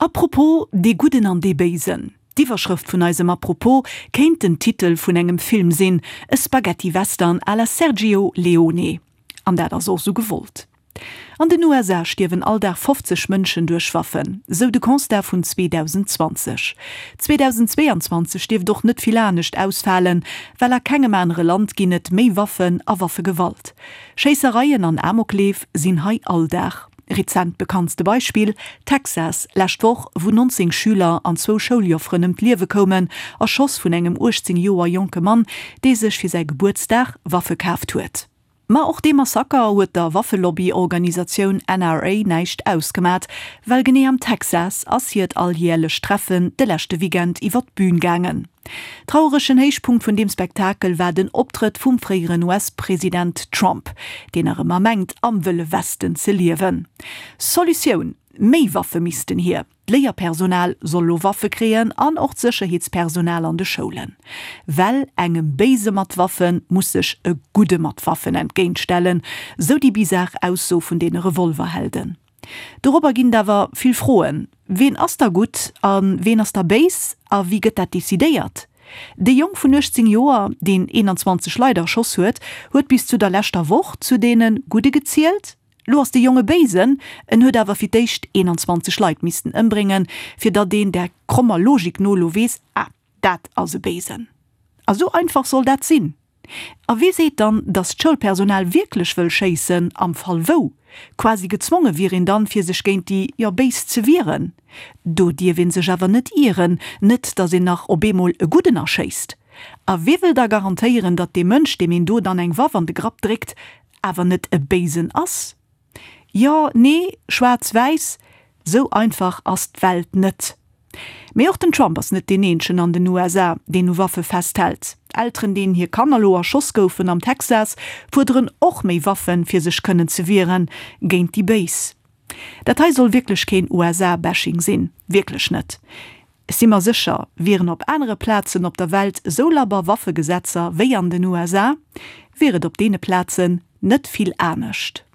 Apropos, dee Gudden an dee Béisen. D'Iwwerschrëft vun eisem Apropos kéint den Titel vun engem Film sinn, e Spaghetti-Western à la Sergio Leone. An dat ass och sou gewollt. An den USA stierwen all Dag 50 Mënschen duerch Waffen, sou de Constat vun 2020. 2022 dierft och net vill anescht ausfalen, well a kengem anere Land ginn et méi Waffen a Waffegewalt. Schéissereien an Amokleef sinn hei Alldag. Rezent bekanntste Beispill, Texas, lescht Woch, wou 19 Schüler an zwou Schouljofferen ëm d'Liewe koumen, erschoss vun engem 18 Joer jonke Mann, dee sech fir säi Gebuertsdag Waffe kaaft huet. Ma och dee Massaker huet der Waffelobby-Organisatioun NRA näischt ausgemat, well genee am Texas ass hiert alljärlecht Treffen de leschte Weekend iwwer d'Bün gaangen. Traueregen Héichpunkt vun deem Spektakel war den Optrëtt vum fréieren US-President Trump, deen nach ëmmer mengt am Wëlle Westen ze liewen. Solutioun, Méi Waffe missten hier. D'Léierpersonal soll lo Waffe kréien an och d'Sécherheetspersonal an de Schoulen. Well engem Béise mat Waffe muss sech e Gudde mat Waffen entgéintstellen, sou déi bizar Ausso vun deene Revolverhelden. Dorobber ginn et awer vill Froen, Ween ass da gutt a ween ass da béis a wéi gëtt dat decidéiert? De Jong vun 18 Joer, deen 21 Leit erschoss huet, huet bis zu der leschter Woch zu deene Gudde gezielt. Lo ass de Jong e Béisen, en huet awer fir d'éischt 21 Leit missten ëmbréngen, fir datt een där krommer Logik no lo weess, ah, dat ass e Béisen. A sou einfach soll dat sinn? A wie seet dann, datt d'Schoulpersonal wierklech wëll schéissen, am Fall wou? Quasi gezwonge wier een dann, fir sech géint déi, jo, Béis ze wieren. Do dierf een sech awer net ieren, net datt een nach op eemol e Gudden erschéisst. A wie wëll da garantéieren, datt dee Mënsch, deem een do dann eng Waff an de Grapp dréckt, awer net e Béisen ass? Jo, nee, schwaarz-wäiss, sou einfach ass d'Welt net. Mee och den Trump ass net deen eenzegen an den USA, deen u Waffe festhält. Elteren, deenen hir Kanner lo erschoss goufen am Texas, fuerderen och méi Waffen, fir sech kënnen ze wieren géint déi Béis. Dat hei soll wierklech keen USA-Bashing sinn, wierklech net. Ech si mer sécher, wieren op anere Plazen op der Welt esou labber Waffegesetzer wéi an den USA, wier et op deene Plazen net vill anescht.